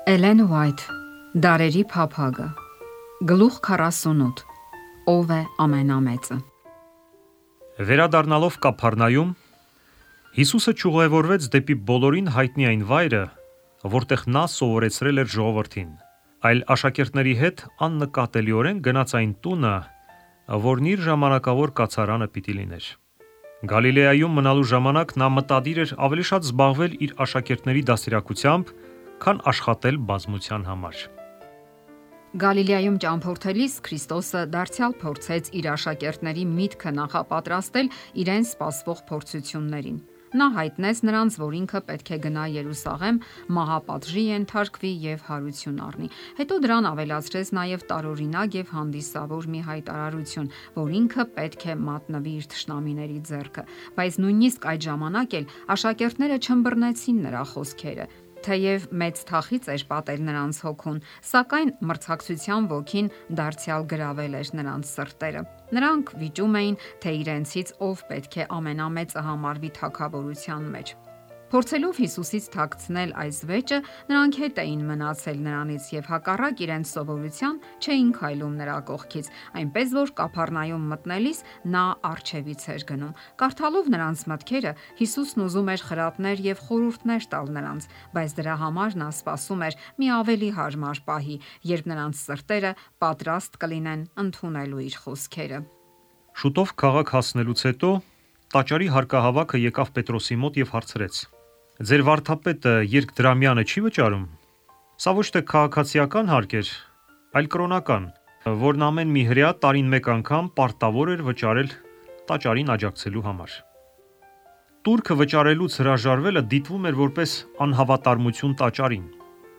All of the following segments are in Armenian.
Էլեն Ուայթ, Դարերի փափագը, գլուխ 48, ով է ամենամեծը։ Վերադառնալով Կափառնայում, Հիսուսը ճյուղևորվեց դեպի բոլորին հայտնի այն վայրը, որտեղ նա սովորեցրել էր ժողովրդին, այլ աշակերտների հետ աննկատելիորեն գնաց այն տունը, որն իր ժամանակավոր կացարանը պիտի լիներ։ Գալիլեայում մնալու ժամանակ նա մտադիր էր ավելի շատ զբաղվել իր աշակերտների դաստիարակությամբ, քան աշխատել բազմության համար։ Գալիլեայում ճամփորդելիս Քրիստոսը դարձյալ փորձեց իր աշակերտների միտքը նախապատրաստել իրեն սպասվող փորձություններին։ Նա հայտնեց նրանց, որ ինքը պետք է գնա Երուսաղեմ, մահապատժի ենթարկվի եւ հարություն առնի։ Հետո դրան ավելացրեց նաեւ տարօրինակ եւ հանդիսավոր մի հայտարարություն, որ ինքը պետք է մատնվի իր թշնամիների ձեռքը։ Բայց նույնիսկ այդ ժամանակ էլ աշակերտները չըմբռնեցին նրա խոսքերը։ Թեև մեծ թախից էր պատել նրանց հոգուն, սակայն մրցակցության ոգին դարձյալ գրավել էր նրանց սրտերը։ Նրանք վիճում էին, թե իրենցից ով պետք է ամենամեծը համարվի թագավորության մեջ։ Փորձելով Հիսուսից թաքցնել այս վեճը, նրանք հետ էին մնացել նրանից եւ հակառակ իրենց սովորության չէին քայլում նրա կողքից, այնպես որ Կափառնայում մտնելիս նա առջևից էր գնում։ Կարդալով նրանց մտքերը, Հիսուսն ուզում էր խրատներ եւ խորհուրդներ տալ նրանց, բայց դրա համար նա սպասում էր մի ավելի հարմար պահի, երբ նրանց սրտերը պատրաստ կլինեն ընդունելու իր խոսքերը։ Շուտով քաղաք հասնելուց հետո տաճարի հարկահավաքը եկավ Պետրոսի մոտ եւ հարցրեց. Ձեր վարդապետը երկդրամյանը չի վճարում։ Սա ոչ թե քաղաքացիական հարկ էր, այլ կրոնական, որն ամեն մի հրեա տարին մեկ անգամ պարտավոր էր վճարել տաճարին աջակցելու համար։ Տուրքը վճարելուց հրաժարվելը դիտվում էր որպես անհավատարմություն տաճարին,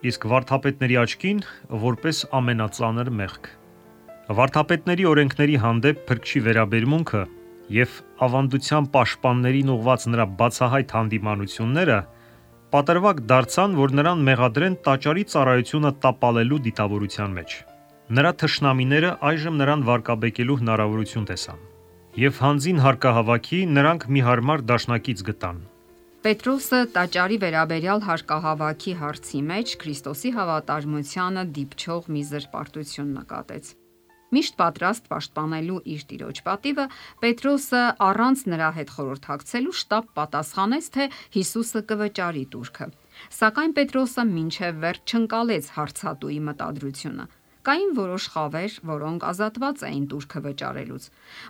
իսկ վարդապետների աչքին որպես ամենածանր մեղք։ Վարդապետների օրենքների հանդեպ փրկչի վերաբերմունքը եւ ավանդության պաշտպաններին ուղված նրա բացահայտ հանդիմանությունները պատրվակ դարձան, որ նրան մեղադրեն տաճարի ծառայությունը տապալելու դիտավորության մեջ։ Նրա թշնամիները այժմ նրան վարկաբեկելու հնարավորություն տեսան, եւ հանձին հարկահավաքի նրանք մի հարմար դաշնակից գտան։ Պետրոսը տաճարի վերաբերյալ հարկահավաքի հարցի մեջ Քրիստոսի հավատարմությանը դիպչող մի զրպարտություն նկատեց։ Միշտ պատրաստ պաշտպանելու իր տիրոջ պատիվը, Պետրոսը առանց նրա հետ խորհրդակցելու շտապ պատասխանեց, թե Հիսուսը կվճարի տուրքը։ Սակայն Պետրոսը մինչև վերջ չընկալեց հարցատուի մտադրությունը։ Կային որոշ խավեր, որոնք ազատված էին տուրքը վճարելուց։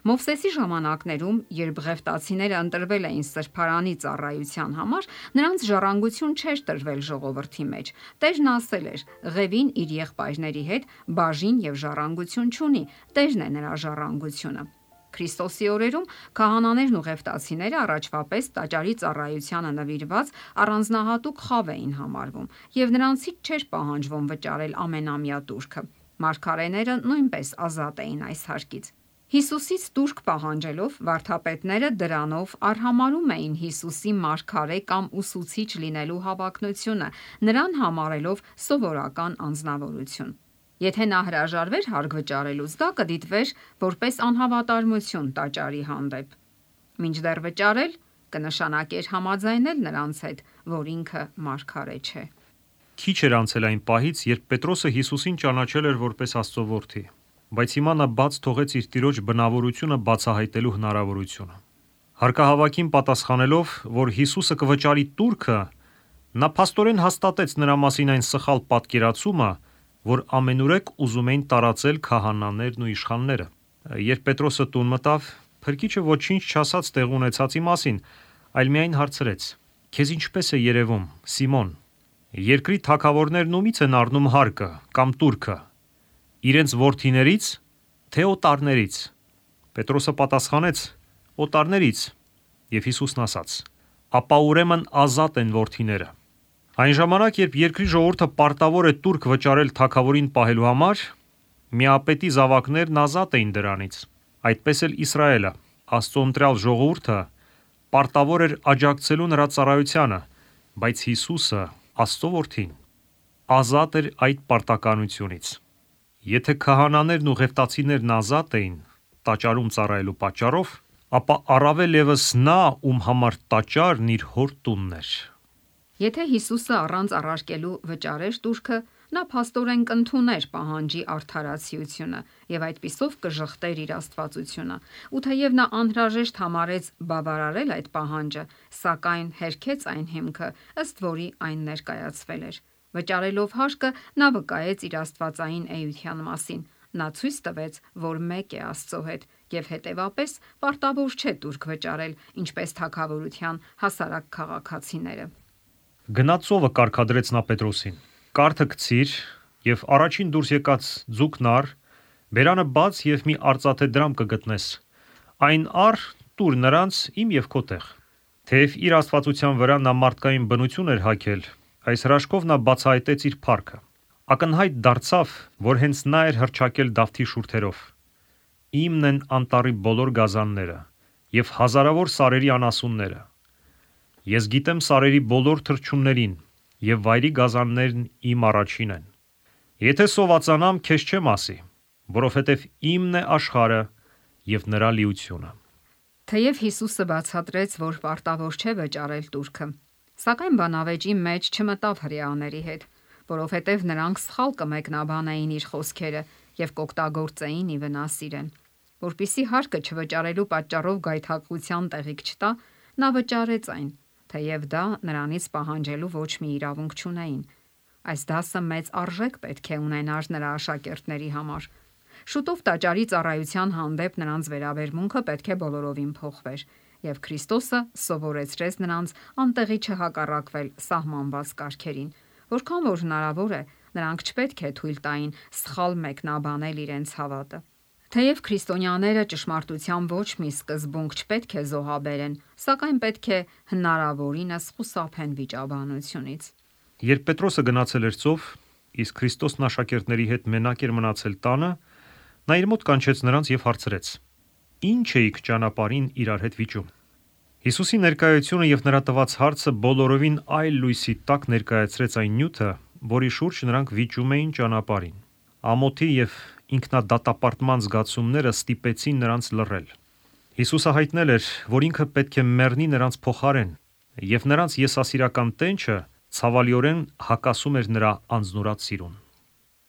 Մովսեսի ժամանակներում, երբ ղևտացիները ընտրվել էին սրբարանի ծառայության համար, նրանց ժառանգություն չէր տրվել ժողովրդի մեջ։ Տերն ասել էր. «Ղևին իր եղբայրների հետ բաժին եւ ժառանգություն չունի, Տերն է նրա ժառանգությունը»։ Քրիստոսի օրերում քահանաներն ու ղևտացիները առաջվա պես տաճարի ծառայությանը նվիրված առանձնահատուկ խավ էին համարվում, եւ նրանցից չէր պահանջվում վճարել ամենամյա տուրքը։ Մարգարեները նույնպես ազատ էին այս հարկից։ Հիսուսից տուրք պահանջելով վարդապետները դրանով արհամարում էին Հիսուսի մարգարե կամ ուսուցիչ լինելու հավակնությունը, նրան համարելով սովորական անձնավորություն։ Եթե նա հրաժարվեր հարկ վճարելուց, դա կդիտվեր որպես անհավատարմություն տաճարի հանդեպ։ Մինչդեռ վճարել կնշանակեր համաձայնել նրանց հետ, որ ինքը մարգարե չէ։ Քիչ էր անցել այն պահից, երբ Պետրոսը Հիսուսին ճանաչել էր որպես Աստծո որդի, բայց հիմա նա բաց թողեց իր տիրոջ բնավորությունը բացահայտելու հնարավորությունը։ Հարկահավաքին պատասխանելով, որ Հիսուսը կվճարի տուրքը, նա փաստորեն հաստատեց նրա մասին այն սխալ պատկերացումը, որ ամենուրեք ուզում էին տարածել քահանաներն ու իշխանները։ Երբ Պետրոսը տուն մտավ, Փրկիչը ոչինչ չասաց տեղ ունեցածի մասին, այլ միայն հարցրեց. Քեզ ինչպես է երևում, Սիմոն, երկրի թագավորներն ումից են առնում հարկը կամ տուրքը, իրենց որդիներից, թե օտարներից։ Պետրոսը պատասխանեց. օտարներից, եւ Հիսուսն ասաց. ապա ուրեմն ազատ են որդիները։ Այն ժամանակ, երբ երկրի ժողովուրդը պարտավոր է տուրք վճարել թագավորին պահելու համար, միապետի զավակներն ազատ էին դրանից։ Այդպես էլ Իսրայելը, Աստծո ընտրյալ ժողովուրդը, պարտավոր էր աջակցելու նրա ծառայությանը, բայց Հիսուսը, Աստծո որդին, ազատ էր այդ պարտականությունից։ Եթե քահանաներն ու ղևտացիներն ազատ էին տաճարում ծառայելու պատճառով, ապա առավել ևս նա, ում համար տաճարն իր հոր տունն էր։ Եթե Հիսուսը առանց առարկելու վճարեր տուրքը, նա փաստորեն կընդուներ պահանջի արդարացիությունը եւ այդպիսով կժխտեր իր աստվածությունը։ Ու թեև նա անհրաժեշտ համարեց բավարարել այդ պահանջը, սակայն հերքեց այն հիմքը, ըստ որի այն ներկայացվել էր։ Վճարելով հարկը, նա վկայեց իր աստվածային էության մասին։ Նա ցույց տվեց, որ մեկ է Աստծո հետ եւ հետեւապես պարտավոր չէ տուրք վճարել, ինչպես թագավորության հասարակ քաղաքացիները։ Գնացովը կարգադրեց նա Պետրոսին. «Կարթը գցիր եւ առաջին դուրս եկած ձուկն առ, բերանը բաց եւ մի արծաթե դրամ կգտնես։ Այն առ տուր նրանց իմ եւ քո տեղ»։ Թեև իր աստվածության վրա նա մարդկային բնություն էր հագել, այս հրաշքով նա բացահայտեց իր փառքը։ Ակնհայտ դարձավ, որ հենց նա էր հռչակել Դավթի շուրթերով. «Իմն են անտառի բոլոր գազանները եւ հազարավոր սարերի անասունները։ Ես գիտեմ սարերի բոլոր թռչուններին եւ վայրի գազաններն իմ առաջին են։ Եթե սովածանամ, քեզ չեմ ասի, որովհետեւ իմն է աշխարհը եւ նրա լիությունը»։ Թեև Հիսուսը բացատրեց, որ պարտավոր չէ վճարել տուրքը, սակայն բանավեճի մեջ չմտավ հրեաների հետ, որովհետև նրանք սխալ կմեկնաբանեին իր խոսքերը եւ կօգտագործեին ի վնաս իրեն։ Որպիսի հարկը չվճարելու պատճառով գայթակղության տեղիք չտա, նա վճարեց այն, թեև դա նրանից պահանջելու ոչ մի իրավունք չունեին։ Այս դասը մեծ արժեք պետք է ունենար նրա աշակերտների համար։ Շուտով տաճարի ծառայության հանդեպ նրանց վերաբերմունքը պետք է բոլորովին փոխվեր, եւ Քրիստոսը սովորեցրեց նրանց անտեղի չհակառակվել սահմանված կարգերին, որքան որ հնարավոր է, նրանք չպետք է թույլ տային սխալ մեկնաբանել իրենց հավատը։ Թեև քրիստոնյաները ճշմարտության ոչ մի սկզբունք չպետք է զոհաբերեն, սակայն պետք է հնարավորինս խուսափեն վիճաբանությունից։ Երբ Պետրոսը գնացել էր ծով, իսկ Քրիստոսն աշակերտների հետ մենակ էր մնացել տանը, նա իր մոտ կանչեց նրանց եւ հարցրեց. «Ինչ էիք ճանապարհին իրար հետ վիճում»։ Հիսուսի ներկայությունը եւ նրա տված հարցը բոլորովին այլ լույսի տակ ներկայացրեց այն նյութը, որի շուրջ նրանք վիճում էին ճանապարհին։ Ամոթի եւ ինքնադատապարտման զգացումները ստիպեցին նրանց լռել։ Հիսուսը հայտնել էր, որ ինքը պետք է մեռնի նրանց փոխարեն, եւ նրանց եսասիրական տենչը ցավալիորեն հակասում էր նրա անձնուրաց սիրուն։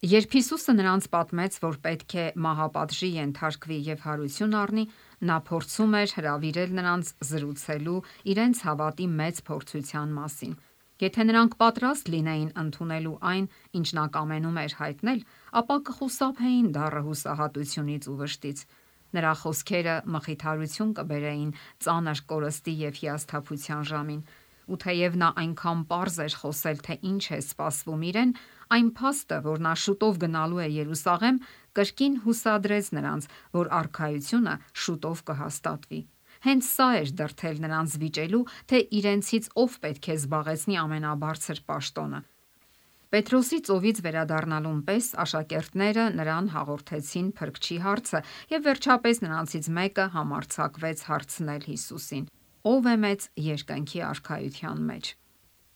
Երբ Հիսուսը նրանց պատմեց, որ պետք է մահապատժի ենթարկվի եւ հարություն առնի, նա փորձում էր հրավիրել նրանց զրուցելու իրենց հավատի մեծ փորձության մասին։ Եթե նրանք պատրաստ լինեին ընդունելու այն, ինչ նա կամենում էր հայտնել, ապա կխուսափեին դառը հուսահատությունից ու վշտից։ Նրա խոսքերը մխիթարություն կբերեին ծանր կորստի եւ հիասթափության ժամին։ Ու թեև նա այնքան պարզ էր խոսել, թե ինչ է սպասվում իրեն, այն փաստը, որ նա շուտով գնալու է Երուսաղեմ, կրկին հուսադրեց նրանց, որ արքայությունը շուտով կհաստատվի։ Հենց սա էր դրդել նրանց վիճելու, թե իրենցից ով պետք է զբաղեցնի ամենաբարձր պաշտոնը։ Պետրոսի ծովից վերադառնալուն պես աշակերտները նրան հաղորդեցին փրկչի հարցը եւ վերջապես նրանցից մեկը համարձակվեց հարցնել Հիսուսին. «Ո՞վ է մեծ երկնքի արքայության մեջ»։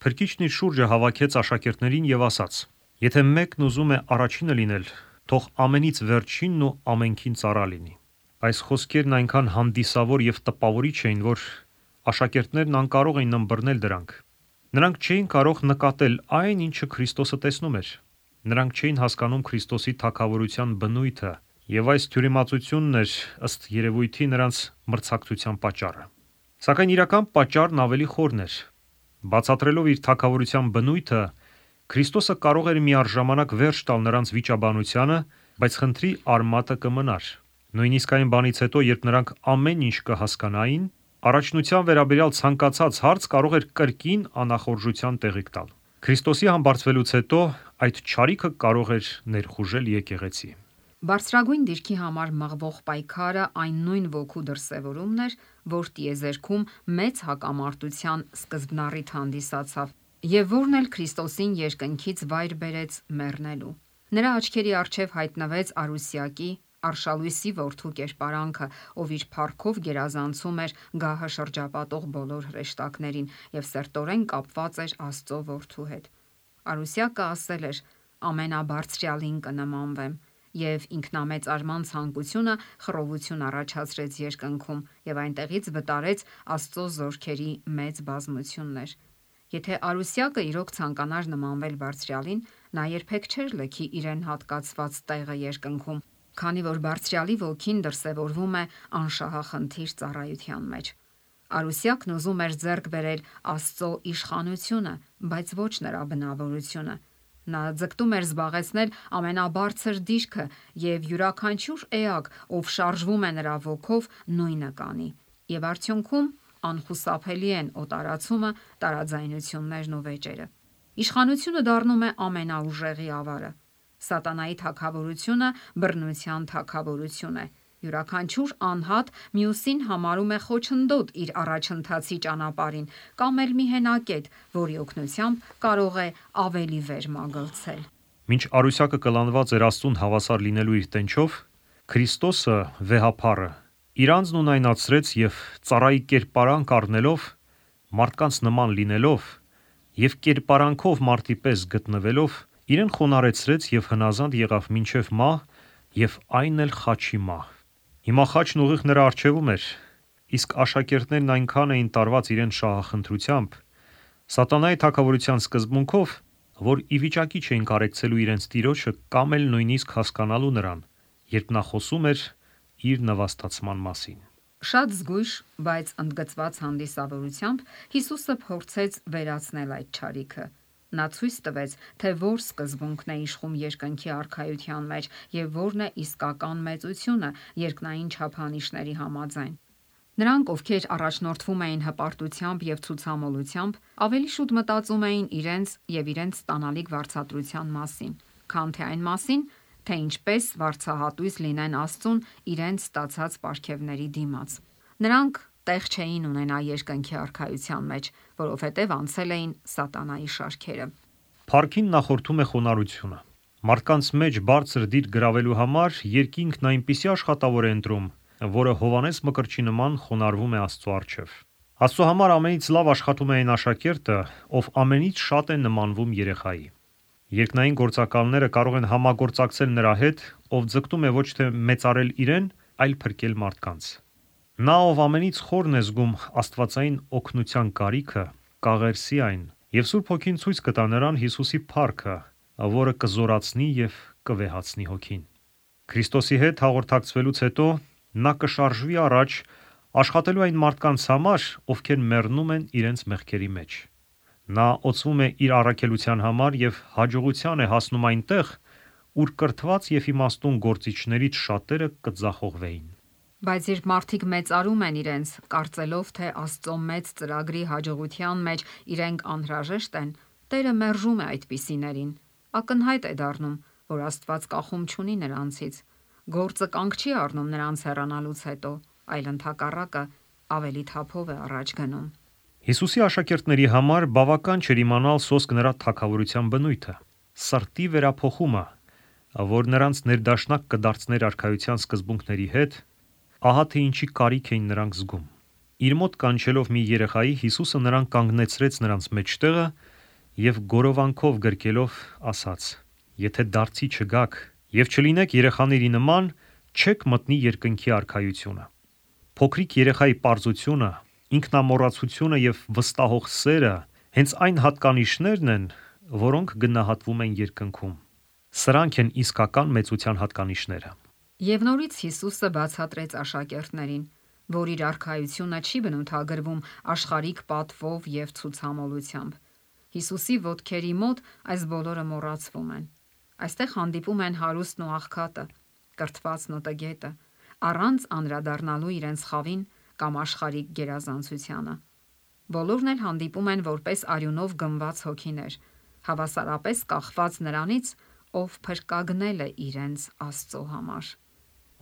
Փրկիչն իր շուրջը հավաքեց աշակերտներին եւ ասաց. «Եթե մեկն ուզում է առաջինը լինել, թող ամենից վերջինն ու ամենքին ծառա լինի»։ Այս խոսքերն այնքան հանդիսավոր եւ տպավորիչ էին, որ աշակերտներն անկարող էին ըմբռնել դրանք։ Նրանք չէին կարող նկատել այն, ինչը Քրիստոսը տեսնում էր։ Նրանք չէին հասկանում Քրիստոսի թագավորության բնույթը, եւ այս թյուրիմացությունն էր ըստ երևույթի նրանց մրցակցության պատճառը։ Սակայն իրական պատճառն ավելի խորն էր։ Բացատրելով իր թագավորության բնույթը, Քրիստոսը կարող էր միառժամանակ վերջ տալ նրանց վիճաբանությանը, բայց խնդրի արմատը կմնար։ Նույնիսկ այն բանից հետո, երբ նրանք ամեն ինչ կհասկանային, առաջնության վերաբերյալ ցանկացած հարց կարող էր կրկին անախորժության տեղիք տալ։ Քրիստոսի համբարձվելուց հետո այդ չարիքը կարող էր ներխուժել եկեղեցի։ Բարձրագույն դիրքի համար մղվող պայքարը այն նույն ոգու դրսևորումն էր, որ տիեզերքում մեծ հակամարտության սկզբնառիթ հանդիսացավ եւ որն էլ Քրիստոսին երկնքից վայր բերեց մեռնելու։ Նրա աչքերի առջև հայտնվեց Արուսյակի Արշալույսի որդու կերպարանքը, ով իր փառքով գերազանցում էր գահը շրջապատող բոլոր հրեշտակներին եւ սերտորեն կապված էր Աստծո որդու հետ։ Արուսյակը ասել էր. «Ամենաբարձրյալին կնմանվեմ», եւ ինքնամեծարման ցանկությունը խռովություն առաջացրեց երկնքում եւ այնտեղից վտարեց Աստծո զորքերի մեծ բազմություններ։ Եթե Արուսյակը իրոք ցանկանար նմանվել Բարձրյալին, նա երբեք չէր լքի իրեն հատկացված տեղը երկնքում, քանի որ Բարձրյալի ոգին դրսևորվում է անշահախնդիր ծառայության մեջ։ Արուսյակն ուզում էր ձեռք բերել Աստծո իշխանությունը, բայց ոչ նրա բնավորությունը։ Նա ձգտում էր զբաղեցնել ամենաբարձր դիրքը եւ յուրաքանչյուր էակ, ով շարժվում է նրա ոգով, նույնը կանի։ Եվ արդյունքում անխուսափելի են օտարացումը, տարաձայնություններն ու վեճերը։ Իշխանությունը դառնում է ամենաուժեղի ավարը։ Սատանայի թագավորությունը բռնության թագավորություն է։ Յուրաքանչյուր անհատ մյուսին համարում է խոչընդոտ իր առաջընթացի ճանապարհին կամ էլ մի հենակետ, որի օգնությամբ կարող է ավելի վեր մագլցել։ Մինչ Արուսյակը կլանված էր Աստծուն հավասար լինելու իր տենչով, Քրիստոսը վեհափառը իր անձն ունայնացրեց եւ ծառայի կերպարանք առնելով, մարդկանց նման լինելով եւ կերպարանքով մարդի պես գտնվելով, իրեն խոնարհեցրեց եւ հնազանդ եղավ մինչեւ մահ եւ այն էլ խաչի մահ։ Հիմա խաչն ուղիղ նրա առջևում էր, իսկ աշակերտներն այնքան էին տարված իրեն շահախնդրությամբ, սատանայի թագավորության սկզբունքով, որ ի վիճակի չէին կարեկցելու իրենց տիրոջը կամ էլ նույնիսկ հասկանալու նրան, երբ նա խոսում էր իր նվաստացման մասին։ Շատ զգույշ, բայց ընդգծված հանդիսավորությամբ Հիսուսը փորձեց վերացնել այդ չարիքը։ Նա ցույց տվեց, թե որ սկզբունքն է իշխում երկնքի արքայության մեջ եւ որն է իսկական մեծությունը երկնային չափանիշների համաձայն։ Նրանք, ովքեր առաջնորդվում էին հպարտությամբ եւ ցուցամոլությամբ, ավելի շուտ մտածում էին իրենց եւ իրենց ստանալիք վարձատրության մասին, քան թե այն մասին, թե ինչպես վարձահատույց լինեն Աստծուն իրենց ստացած պարգևների դիմաց։ Նրանք տեղ չէին ունենա երկնքի արքայության մեջ, որովհետև անցել էին սատանայի շարքերը։ Փառքին նախորդում է խոնարհությունը։ Մարդկանց մեջ բարձր դիր գրավելու համար երկինքն այնպիսի աշխատավոր է ընտրում, որը Հովանես Մկրտչի նման խոնարհվում է Աստծո առջև։ Աստծո համար ամենից լավ աշխատում է այն աշակերտը, ով ամենից շատ է նմանվում երեխայի։ Երկնային գործակալները կարող են համագործակցել նրա հետ, ով ձգտում է ոչ թե մեծարել իրեն, այլ փրկել մարդկանց։ Նա, ով ամենից խորն է զգում աստվածային օգնության կարիքը, կաղերսի այն, եւ Սուրբ Հոգին ցույց կտա նրան Հիսուսի փառքը, որը կզորացնի եւ կվեհացնի հոգին։ Քրիստոսի հետ հաղորդակցվելուց հետո նա կշարժվի առաջ աշխատելու այն մարդկանց համար, ովքեր մեռնում են իրենց մեղքերի մեջ։ Նա օծվում է իր առաքելության համար եւ հաջողության է հասնում այնտեղ, ուր կրթված եւ իմաստուն գործիչներից շատերը կձախողվեին։ Բայց երբ մարդիկ մեծարում են իրենց, կարծելով, թե Աստծո մեծ ծրագրի հաջողության մեջ իրենք անհրաժեշտ են, Տերը մերժում է այդպիսիներին։ Ակնհայտ է դառնում, որ Աստված կախում չունի նրանցից։ Գործը կանգ չի առնում նրանց հեռանալուց հետո, այլ ընդհակառակը ավելի թափով է առաջ գնում։ Հիսուսի աշակերտների համար բավական չէր իմանալ սոսկ նրա թագավորության բնույթը, սրտի վերափոխումը, որ նրանց ներդաշնակ կդարձներ արքայության սկզբունքների հետ, ահա թե ինչի կարիք էին նրանք զգում։ Իր մոտ կանչելով մի երեխայի, Հիսուսը նրան կանգնեցրեց նրանց մեջտեղը եւ գորովանքով գրկելով ասաց. «Եթե դարձի չգաք եւ չլինեք երեխաների նման, չեք մտնի երկնքի արքայությունը»։ Փոքրիկ երեխայի պարզությունը, ինքնամոռացությունը եւ վստահող սերը հենց այն հատկանիշներն են, որոնք գնահատվում են երկնքում։ Սրանք են իսկական մեծության հատկանիշները։ Եվ նորից Հիսուսը բացատրեց աշակերտներին, որ իր արքայությունը չի բնութագրվում աշխարհիկ պատվով եւ ցուցամոլությամբ։ Հիսուսի ոտքերի մոտ այս բոլորը մոռացվում են։ Այստեղ հանդիպում են հարուստն ու աղքատը, կրթվածն ու տգետը, առանց անդրադառնալու իրենց խավին կամ աշխարհիկ գերազանցությանը։ Բոլորն էլ հանդիպում են որպես արյունով գնված հոգիներ, հավասարապես կախված նրանից, ով փրկագնել է իրենց Աստծո համար։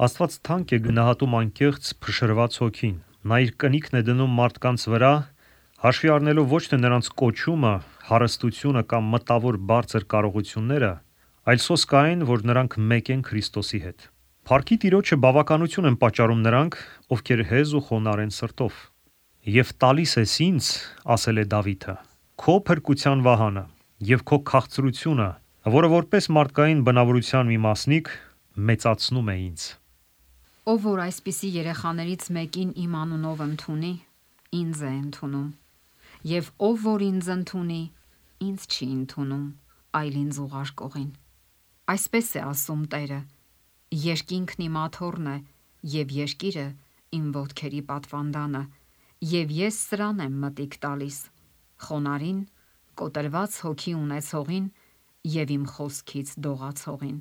Աստված թանկ է գնահատում անկեղծ փշրված հոգին։ Նա իր կնիքն է դնում մարդկանց վրա, հաշվի առնելով ոչ թե նրանց կոչումը, հարստությունը կամ մտավոր բարձր կարողությունները, այլ սոսկ այն, որ նրանք մեկ են Քրիստոսի հետ։ Փառքի Տիրոջը բավականություն են պատճառում նրանք, ովքեր հեզ ու խոնարհ են սրտով։ «Եվ տալիս ես ինձ, ասել է Դավիթը, քո փրկության վահանը եւ քո քաղցրությունը, որը որպես մարդկային բնավորության մի մասնիկ մեծացնում է ինձ»։ Ով որ այսպիսի երեխաներից մեկին իմ անունով ընդունի, ինձ է ընդունում։ եւ ով որ ինձ ընդունի, ինձ չի ընդունում, այլ ինձ ուղարկողին։ Այսպես է ասում Տերը. երկինքն իմ աթոռն է եւ երկիրը իմ ոտքերի պատվանդանը, եւ ես սրան եմ մտիկ տալիս խոնարհին, կոտրված հոգի ունեցողին եւ իմ խոսքից դողացողին։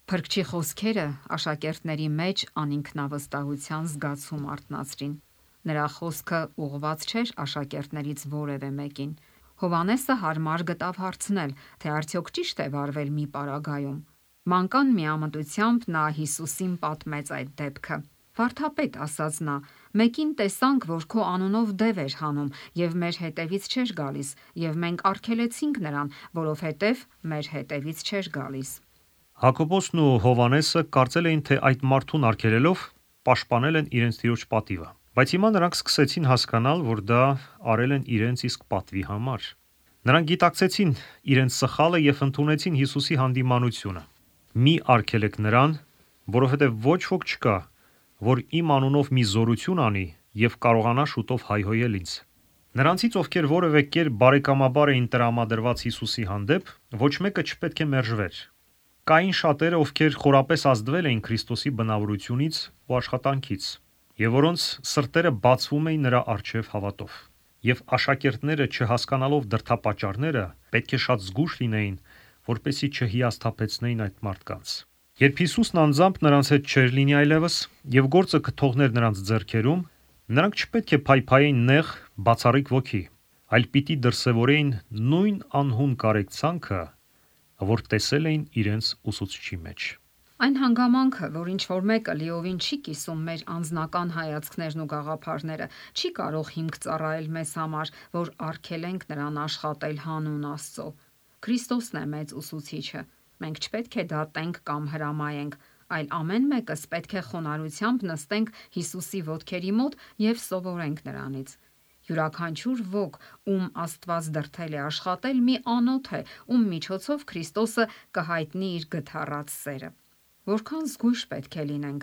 Փրկչի խոսքերը աշակերտների մեջ անինքնավստահության զգացում արթնացրին։ Նրա խոսքը ուղղված չէր աշակերտներից որևէ մեկին։ Հովհաննեսը հարմար գտավ հարցնել, թե արդյոք ճիշտ է վարվել մի պարագայում։ Մանկան միամտությամբ նա Հիսուսին պատմեց այդ դեպքը։ Վարդապետ, ասաց նա, մեկին տեսանք, որ քո անունով դև էր հանում եւ մեր հետևից չէր գալիս, եւ մենք արգելեցինք նրան, որովհետեւ մեր հետևից չէր գալիս։ Հակոբոսն ու Հովհաննեսը կարծել էին, թե այդ մարդուն արգելելով պաշտպանել են իրենց տիրոջ պատիվը, բայց հիմա նրանք սկսեցին հասկանալ, որ դա արել են իրենց իսկ պատվի համար։ Նրանք գիտակցեցին իրենց սխալը եւ ընդունեցին Հիսուսի հանդիմանությունը։ Մի արգելեք նրան, որովհետեւ ոչ ոք չկա, որ իմ անունով մի զորություն անի եւ կարողանա շուտով հայհոյել ինձ։ Նրանցից, ովքեր որևէ կերպ բարեկամաբար էին տրամադրված Հիսուսի հանդեպ, ոչ մեկը չպետք է մերժվեր։ Կային շատերը, ովքեր խորապես ազդվել էին Քրիստոսի բնավորությունից ու աշխատանքից, եւ որոնց սրտերը բացվում էին նրա առջև հավատով։ Եվ աշակերտները, չհասկանալով դրդապատճառները, պետք է շատ զգույշ լինեին, որպեսզի չհիասթափեցնեին այդ մարդկանց։ Երբ Հիսուսն անձամբ նրանց հետ չէր լինի այլևս եւ գործը կթողներ նրանց ձեռքերում, նրանք չպետք է փայփայեին նեղ, բացառիկ ոգի, այլ պիտի դրսևորեին նույն անհուն կարեկցանքը, որ տեսել էին իրենց ուսուցչի մեջ։ Այն հանգամանքը, որ ինչ-որ մեկը լիովին չի կիսում մեր անձնական հայացքներն ու գաղափարները, չի կարող հիմք ծառայել մեզ համար, որ արգելենք նրան աշխատել հանուն Աստծո։ Քրիստոսն է մեծ ուսուցիչը։ Մենք չպետք է դատենք կամ հրամայենք, այլ ամեն մեկս պետք է խոնարհությամբ նստենք Հիսուսի ոտքերի մոտ եւ սովորենք նրանից։ Յուրաքանչյուր ոք, ում Աստված դրդել է աշխատել, մի անոթ է, ում միջոցով Քրիստոսը կհայտնի իր գթառած սերը։ Որքան զգույշ պետք է լինենք,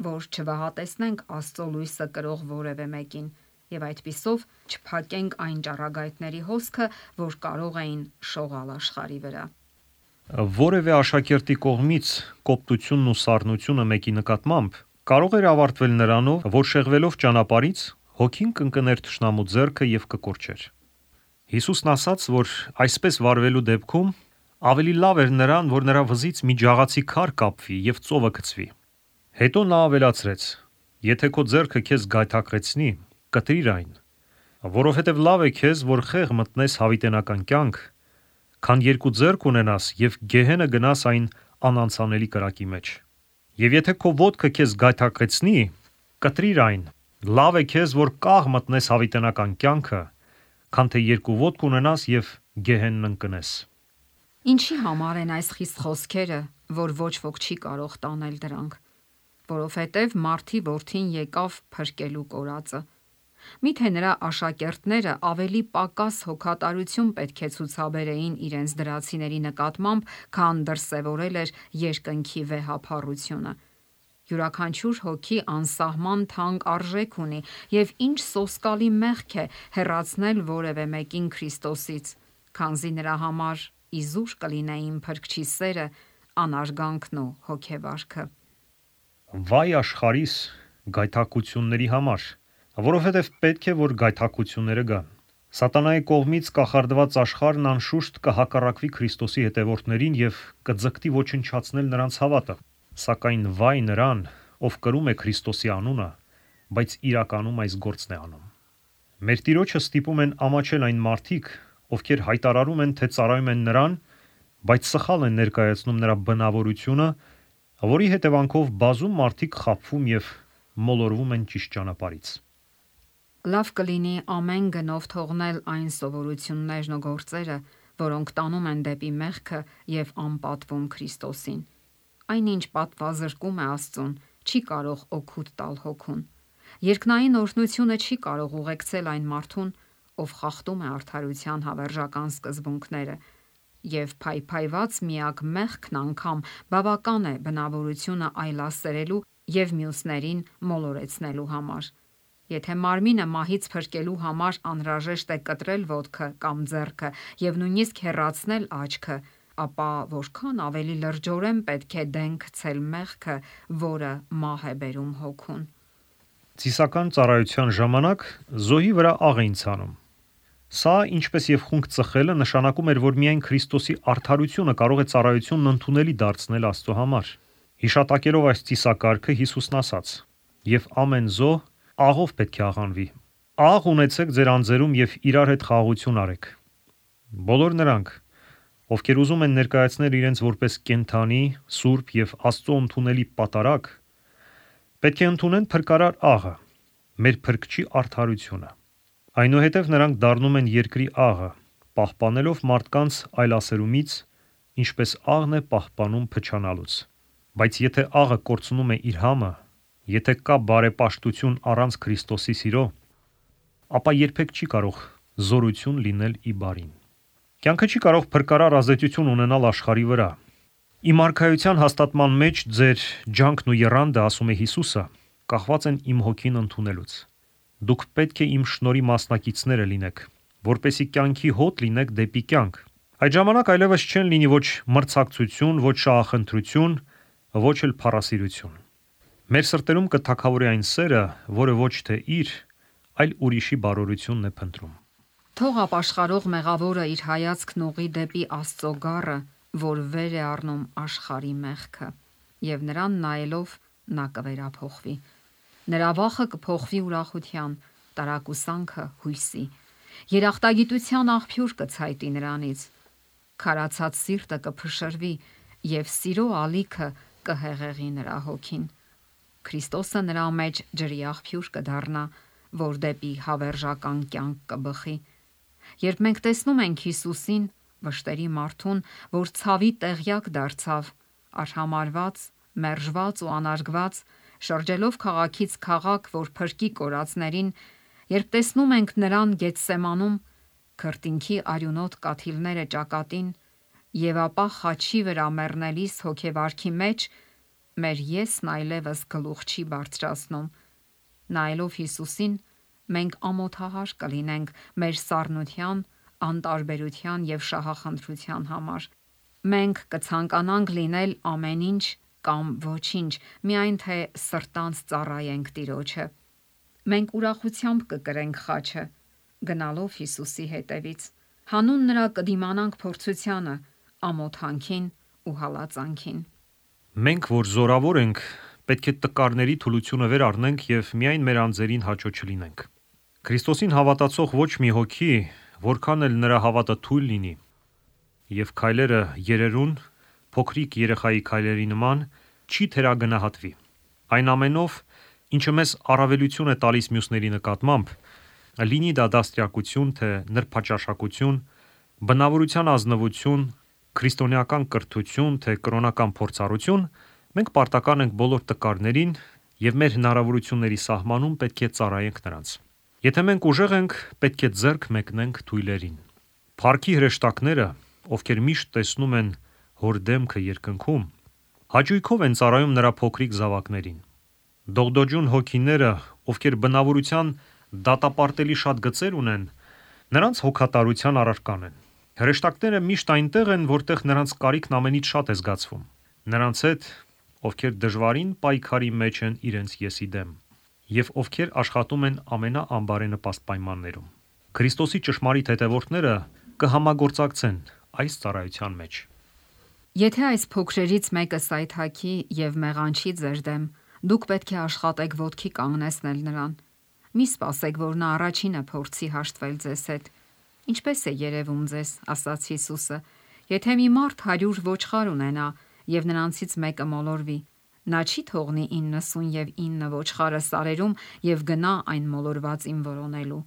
որ չվհատեսնենք Աստծո լույսը կրող որևէ մեկին եւ այդպիսով չփակենք այն ճառագայթների հոսքը, որ կարող էին շողալ աշխարհի վրա։ Որևէ աշակերտի կողմից կոպտությունն ու սառնությունը մեկի նկատմամբ կարող էր ավարտվել նրանով, որ շեղվելով ճանապարհից հոգին կընկներ թշնամու ձեռքը եւ կկորչեր։ Հիսուսն ասաց, որ այսպես վարվելու դեպքում ավելի լավ էր նրան, որ նրա վզից մի ջաղացի քար կապվի եւ ծովը գցվի։ Հետո նա ավելացրեց. եթե քո ձեռքը քեզ գայթակղեցնի, կտրիր այն, որովհետեւ լավ է քեզ, որ խեղ մտնես հավիտենական կյանք, քան երկու ձեռք ունենաս եւ գեհենը գնաս այն անանցանելի կրակի մեջ։ Եվ եթե քո ոտքը քեզ գայթակղեցնի, կտրիր այն, լավ է քեզ, որ կաղ մտնես հավիտենական կյանքը, քան թե երկու ոտք ունենաս եւ գեհենն ընկնես։ Ինչի համար են այս խիստ խոսքերը, որ ոչ ոք չի կարող տանել դրանք, որովհետև Մարդի որդին եկավ փրկելու կորածը։ Միթե նրա աշակերտները ավելի պակաս հոգատարություն պետք է ցուցաբերեին իրենց դրացիների նկատմամբ, քան դրսևորել էր երկնքի վեհափառությունը։ Յուրաքանչյուր հոգի անսահման թանկ արժեք ունի եւ ինչ սոսկալի մեղք է հեռացնել որևէ մեկին Քրիստոսից, քանզի նրա համար իզուր կլինեին փրկչի սերը, անարգանքն ու հոգեվարքը։ Վայ աշխարհիս գայթակղությունների համար, որովհետև պետք է որ գայթակղությունները գան։ Սատանայի կողմից կախարդված աշխարհն անշուշտ կհակառակվի Քրիստոսի հետևորդներին եւ կձգտի ոչնչացնել նրանց հավատը։ Սակայն վայ նրան, ով կրում է Քրիստոսի անունը, բայց իրականում այս գործն է անում։ Մեր Տիրոջը ստիպում են ամաչել այն մարդիկ, ովքեր հայտարարում են, թե ծառայում են նրան, բայց սխալ են ներկայացնում նրա բնավորությունը, որի հետևանքով բազում մարդիկ խաբվում եւ մոլորվում են ճիշտ ճանապարհից։ Լավ կլինի ամեն գնով թողնել այն սովորություններն ու գործերը, որոնք տանում են դեպի մեղքը եւ անպատվում Քրիստոսին։ Այնինչ պատվազրկում է Աստծուն, չի կարող օգուտ տալ հոգուն։ Երկնային օրհնությունը չի կարող ուղեկցել այն մարդուն, ով խախտում է արդարության հավերժական սկզբունքները, եւ փայփայված միակ մեղքն անգամ բավական է բնավորությունը այլասերելու եւ մյուսներին մոլորեցնելու համար։ Եթե մարմինը մահից փրկելու համար անհրաժեշտ է կտրել ոտքը կամ ձեռքը եւ նույնիսկ հեռացնել աչքը, ապա որքան ավելի լրջորեն պետք է դեն գցել մեղքը, որը մահ է բերում հոգուն։ Ծիսական ծառայության ժամանակ զոհի վրա աղ էին ցանում։ Սա, ինչպես եւ խունկ ծխելը, նշանակում էր, որ միայն Քրիստոսի արդարությունը կարող է ծառայությունն ընդունելի դարձնել Աստծո համար։ Հիշատակելով այս ծիսակարգը Հիսուսն ասաց. «Եվ ամեն զոհ աղով պետք է աղանվի։ Աղ ունեցեք ձեր անձերում եւ իրար հետ խաղաղություն արեք»։ Բոլոր նրանք, ովքեր ուզում են ներկայացնել իրենց որպես կենդանի, սուրբ եւ Աստծո ընդունելի պատարագ, պետք է ընդունեն փրկարար աղը, մեր փրկչի արդարությունը։ Այնուհետև նրանք դառնում են երկրի աղը, պահպանելով մարդկանց այլասերումից, ինչպես աղն է պահպանում փչանալուց։ Բայց եթե աղը կորցնում է իր համը, եթե կա բարեպաշտություն առանց Քրիստոսի սիրո, ապա երբեք չի կարող զորություն լինել ի բարին։ Կյանքը չի կարող փրկարար ազդեցություն ունենալ աշխարհի վրա։ Իմ արքայության հաստատման մեջ ձեր ջանքն ու եռանդը, ասում է Հիսուսը, կախված են իմ հոգին ընդունելուց։ Դուք պետք է իմ շնորհի մասնակիցները լինեք, որպեսզի կյանքի հոտ լինեք դեպի կյանք։ Այդ ժամանակ այլևս չեն լինի ոչ մրցակցություն, ոչ շահախնդրություն, ոչ էլ փառասիրություն։ Մեր սրտերում կթագավորի այն սերը, որը ոչ թե իր, այլ ուրիշի բարօրությունն է փնտրում։ Թող ապաշխարող մեղավորը իր հայացքն ուղղի դեպի Աստծո գառը, որ վեր է առնում աշխարհի մեղքը, եւ նրան նայելով նա կվերափոխվի։ Նրա վախը կփոխվի ուրախության, տարակուսանքը հույսի։ Երախտագիտության աղբյուր կցայտի նրանից։ Քարացած սիրտը կփշրվի եւ սիրո ալիքը կհեղեղի նրա հոգին։ Քրիստոսը նրա մեջ ջրի աղբյուր կդառնա, որ դեպի հավերժական կյանք կբխի։ Երբ մենք տեսնում ենք Հիսուսին, վշտերի մարդուն, որ ցավի տեղյակ դարձավ, արհամարված, մերժված ու անարգված, շրջելով քաղաքից քաղաք, որ փրկի կորածներին, երբ տեսնում ենք նրան Գեթսեմանում, քրտինքի արյունոտ կաթիլները ճակատին, եւ ապա խաչի վրա մեռնելիս հոգեվարքի մեջ, մեր եսն այլևս գլուխ չի բարձրացնում։ Նայելով Հիսուսին, մենք ամոթահար կլինենք մեր սառնության, անտարբերության եւ շահախնդրության համար։ Մենք կցանկանանք լինել ամեն ինչ կամ ոչինչ, միայն թե սրտանց ծառայենք Տիրոջը։ Մենք ուրախությամբ կկրենք խաչը, գնալով Հիսուսի հետևից։ Հանուն նրա կդիմանանք փորձությանը, ամոթանքին ու հալածանքին։ Մենք, որ զորավոր ենք, պետք է տկարների թուլությունը վեր առնենք եւ միայն մեր անձերին հաճո չլինենք։ Քրիստոսին հավատացող ոչ մի հոգի, որքան էլ նրա հավատը թույլ լինի, եւ քայլերը երերուն, փոքրիկ երեխայի քայլերի նման, չի թերագնահատվի։ Այն ամենով, ինչը մեզ առավելություն է տալիս մյուսների նկատմամբ, լինի դա դաստիարակություն, թե նրբաճաշակություն, բնավորության ազնվություն, քրիստոնեական կրթություն, թե կրոնական փորձառություն, մենք պարտական ենք բոլոր տկարներին եւ մեր հնարավորությունների սահմանում պետք է ծառայենք նրանց։ Եթե մենք ուժեղ ենք, պետք է ձեռք մեկնենք թույլերին։ Փառքի հրեշտակները, ովքեր միշտ տեսնում են հոր դեմքը երկնքում, հաճույքով են ծառայում նրա փոքրիկ զավակներին։ Դողդոջուն հոգիները, ովքեր բնավորության դատապարտելի շատ գծեր ունեն, նրանց հոգատարության առարկան են։ Հրեշտակները միշտ այնտեղ են, որտեղ նրանց կարիքն ամենից շատ է զգացվում։ Նրանց հետ, ովքեր դժվարին պայքարի մեջ են իրենց եսի դեմ, եւ ովքեր աշխատում են ամենաանբարենպաստ պայմաններում։ Քրիստոսի ճշմարիտ հետևորդները կհամագործակցեն այս ծառայության մեջ։ Եթե այս փոքրերից մեկը սայթաքի եւ մեղանչի ձեր դեմ, դուք պետք է աշխատեք ոտքի կանգնեցնել նրան։ Մի սպասեք, որ նա առաջինը փորձի հաշտվել ձեզ հետ։ Ինչպես է երևում ձեզ, ասաց Հիսուսը, եթե մի մարդ 100 ոչխար ունենա եւ նրանցից մեկը մոլորվի, նա չի թողնի 99 ոչխարը սարերում եւ գնա այն մոլորվածին որոնելու։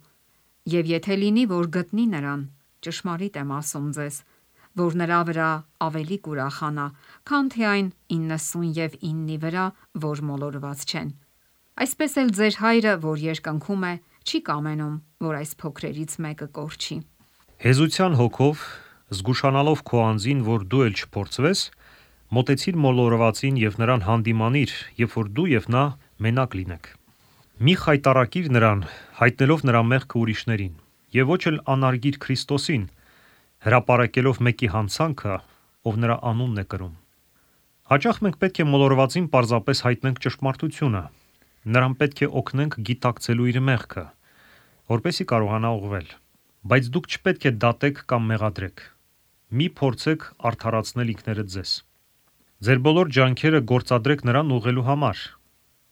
Եվ եթե լինի, որ գտնի նրան, ճշմարիտ եմ ասում ձեզ, որ նրա վրա ավելի կուրախանա, քան թե այն 99-ի վրա, որ մոլորված չեն։ Այսպես էլ ձեր հայրը, որ երկնքում է, չի կամենում, որ այս փոքրերից մեկը կորչի։ Հեզության հոգով, զգուշանալով քո անձին, որ դու էլ չփորձվես, մոտեցիր մոլորվածին եւ նրան հանդիմանիր, երբ որ դու եւ նա մենակ լինեք։ Մի խայտառակիր նրան, հայտնելով նրա մեղքը ուրիշներին, եւ ոչ էլ անարգիր Քրիստոսին, հրապարակելով մեկի հանցանքը, ով նրա անունն է կրում։ Հաճախ մենք պետք է մոլորվածին պարզապես հայտնենք ճշմարտությունը, նրան պետք է օգնենք գիտակցելու իր մեղքը, որպեսզի կարողանա ուղղվել։ Բայց դուք չպետք է դատեք կամ մեղադրեք։ Մի փորձեք արդարացնել ինքներդ ձեզ։ Ձեր բոլոր ջանքերը գործադրեք նրան ուղղելու համար։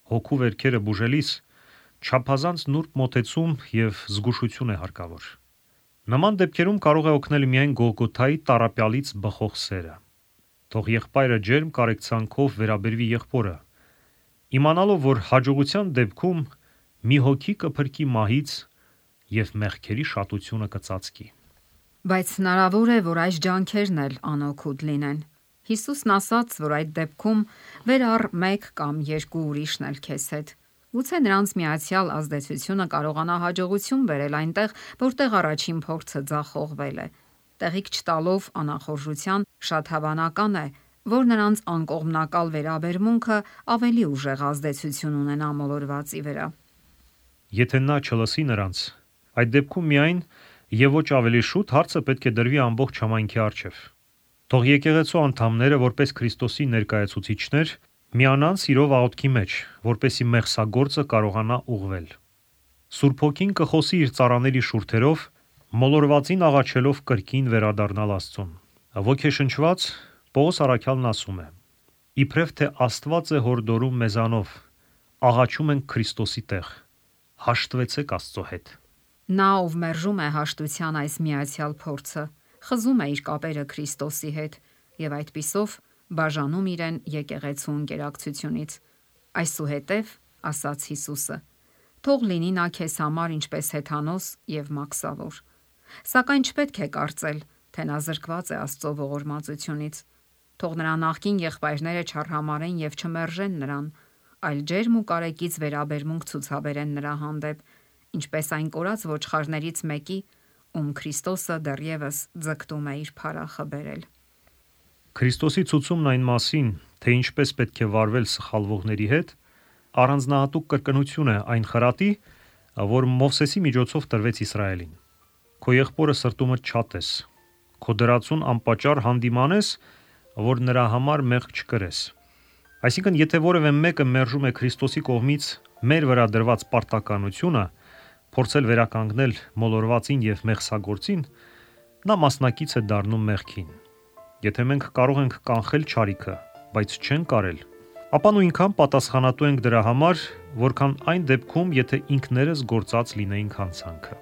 Հոգու վերքերը բուժելիս չափազանց նուրբ մոտեցում եւ զգուշություն է հարկավոր։ Նման դեպքերում կարող է օգնել միայն Գողգոթայի տառապյալից բխող սերը։ Թող եղբայրը ջերմ կարեկցանքով վերաբերվի եղբորը, իմանալով, որ հաջողության դեպքում մի հոգի կփրկի մահից եւ մեղքերի շատությունը կծածկի։ Բայց հնարավոր է, որ այս ջանքերն էլ անօգուտ լինեն։ Հիսուսն ասաց, որ այդ դեպքում վեր առ մեկ կամ երկու ուրիշն էլ քեզ հետ։ Գուցե նրանց միացյալ ազդեցությունը կարողանա հաջողություն բերել այնտեղ, որտեղ առաջին փորձը ձախողվել է։ Տեղիք չտալով անախորժության, շատ հավանական է, որ նրանց անկողմնակալ վերաբերմունքը ավելի ուժեղ ազդեցություն ունենա մոլորվածի վրա։ Եթե նա չլսի նրանց, այդ դեպքում միայն եւ ոչ ավելի շուտ հարցը պետք է դրվի ամբողջ համայնքի առջև։ Թող եկեղեցու անդամները, որպես Քրիստոսի ներկայացուցիչներ, միանան սիրով աղոթքի մեջ, որպեսզի մեղսագործը կարողանա ուղղվել։ Սուրբ Հոգին կխոսի իր ծառաների շուրթերով, մոլորվածին աղաչելով կրկին վերադառնալ Աստծուն։ Ոգեշնչված Պողոս առաքյալն ասում է. «Իբրև թե Աստված է հորդորում մեզանով, աղաչում ենք Քրիստոսի տեղ, հաշտվեցեք Աստծո հետ»։ Նա, ով մերժում է հաշտության այս միացյալ փորձը, խզում է իր կապերը Քրիստոսի հետ եւ այդպիսով բաժանում իրեն եկեղեցու ընկերակցությունից։ Այսուհետև, ասաց Հիսուսը, թող լինի նա քեզ համար ինչպես հեթանոս եւ մաքսավոր։ Սակայն չպետք է կարծել, թե նա զրկված է Աստծո ողորմածությունից։ Թող նրա նախկին եղբայրները չարհամարեն եւ չմերժեն նրան, այլ ջերմ ու կարեկից վերաբերմունք ցուցաբերեն նրա հանդեպ, ինչպես այն կորած ոչխարներից մեկի, ում Քրիստոսը դեռևս ձգտում է իր փարախը բերել։ Քրիստոսի ցուցումն այն մասին, թե ինչպես պետք է վարվել սխալվողների հետ, առանձնահատուկ կրկնություն է այն խրատի, որ Մովսեսի միջոցով տրվեց Իսրայելին։ Քո եղբորը սրտումդ չատես, քո դրածուն անպատճառ հանդիմանես, որ նրա համար մեղք չկրես։ Այսինքն, եթե որևէ մեկը մերժում է Քրիստոսի կողմից մեր վրա դրված պարտականությունը, փորձել վերականգնել մոլորվածին եւ մեղսագործին, նա մասնակից է դառնում մեղքին։ Եթե մենք կարող ենք կանխել չարիքը, բայց չենք կարել, ապա նույնքան պատասխանատու ենք դրա համար, որքան այն դեպքում, եթե ինքներս գործած լինեինք հանցանքը։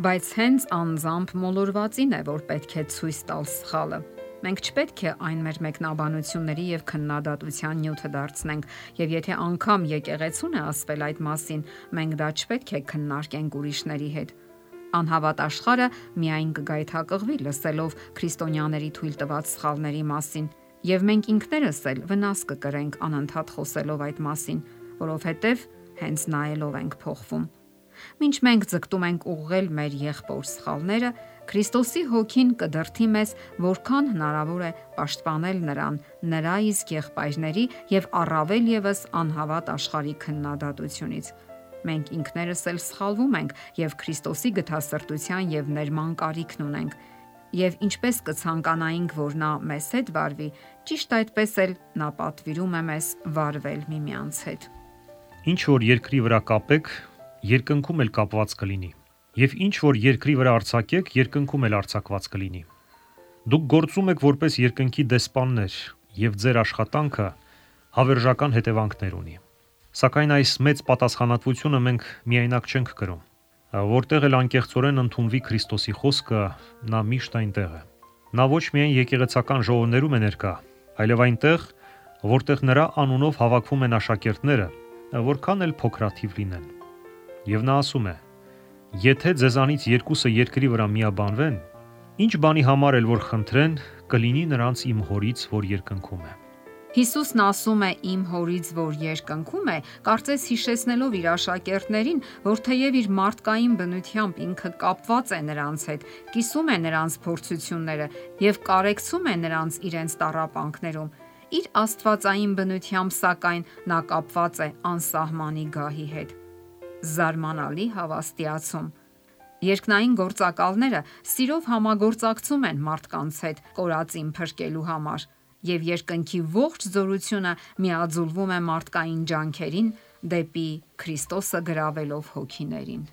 Բայց հենց անձամբ մոլորվածին է, որ պետք է ցույց տալ սխալը։ Մենք չպետք է այն մեր մեկնաբանությունների եւ քննադատության նյութը դարձնենք, եւ եթե անգամ եկեղեցուն է ասվել այդ մասին, մենք դա չպետք է քննարկենք ուրիշների հետ։ Անհավատ աշխարհը միայն կգայթակղվի լսելով քրիստոնյաների թույլ տված սխալների մասին, եւ մենք ինքներս էլ վնաս կկրենք անընդհատ խոսելով այդ մասին, որովհետեւ հենց նայելով ենք փոխվում։ Մինչ մենք ձգտում ենք ուղղել մեր եղբոր սխալները, Քրիստոսի հոգին կդրթի մեզ, որքան հնարավոր է պաշտպանել նրան, նրա իսկ եղբայրների եւ առավել եւս անհավատ աշխարհի քննադատությունից։ Մենք ինքներս էլ սխալվում ենք եւ Քրիստոսի գթասրտության եւ ներման կարիքն ունենք։ Եվ ինչպես կցանկանայինք, որ նա մեզ հետ վարվի, ճիշտ այդպես էլ նա պատվիրում է մեզ վարվել միմյանց հետ։ Ինչ որ երկրի վրա կապեք, երկնքում էլ կապված կլինի, եւ ինչ որ երկրի վրա արձակեք, երկնքում էլ արձակված կլինի։ Դուք գործում եք որպես երկնքի դեսպաններ, եւ ձեր աշխատանքը հավերժական հետևանքներ ունի։ Սակայն այս մեծ պատասխանատվությունը մենք միայնակ չենք կրում։ Որտեղ էլ անկեղծորեն ընդունվի Քրիստոսի խոսքը, նա միշտ այնտեղ է։ Նա ոչ միայն եկեղեցական ժողովներում է ներկա, այլև այնտեղ, որտեղ նրա անունով հավաքվում են աշակերտները, որքան էլ փոքրաթիվ լինեն։ Եվ նա ասում է. «Եթե ձեզանից երկուսը երկրի վրա միաբանվեն, ինչ բանի համար էլ որ խնդրեն, կլինի նրանց իմ հորից, որ երկնքում է»։ Հիսուսն ասում է իմ հորից, որ երկնքում է, կարծես հիշեցնելով իր աշակերտներին, որ թեև իր մարդկային բնությամբ ինքը կապված է նրանց հետ, կիսում է նրանց փորձությունները եւ կարեկցում է նրանց իրենց տառապանքներում, իր աստվածային բնությամբ սակայն նա կապված է անսահմանի գահի հետ։ Զարմանալի հավաստիացում։ Երկնային գործակալները սիրով համագործակցում են մարդկանց հետ կորածին փրկելու համար, եւ երկնքի ողջ զորությունը միաձուլվում է մարդկային ջանքերին դեպի Քրիստոսը գրավելով հոգիներին։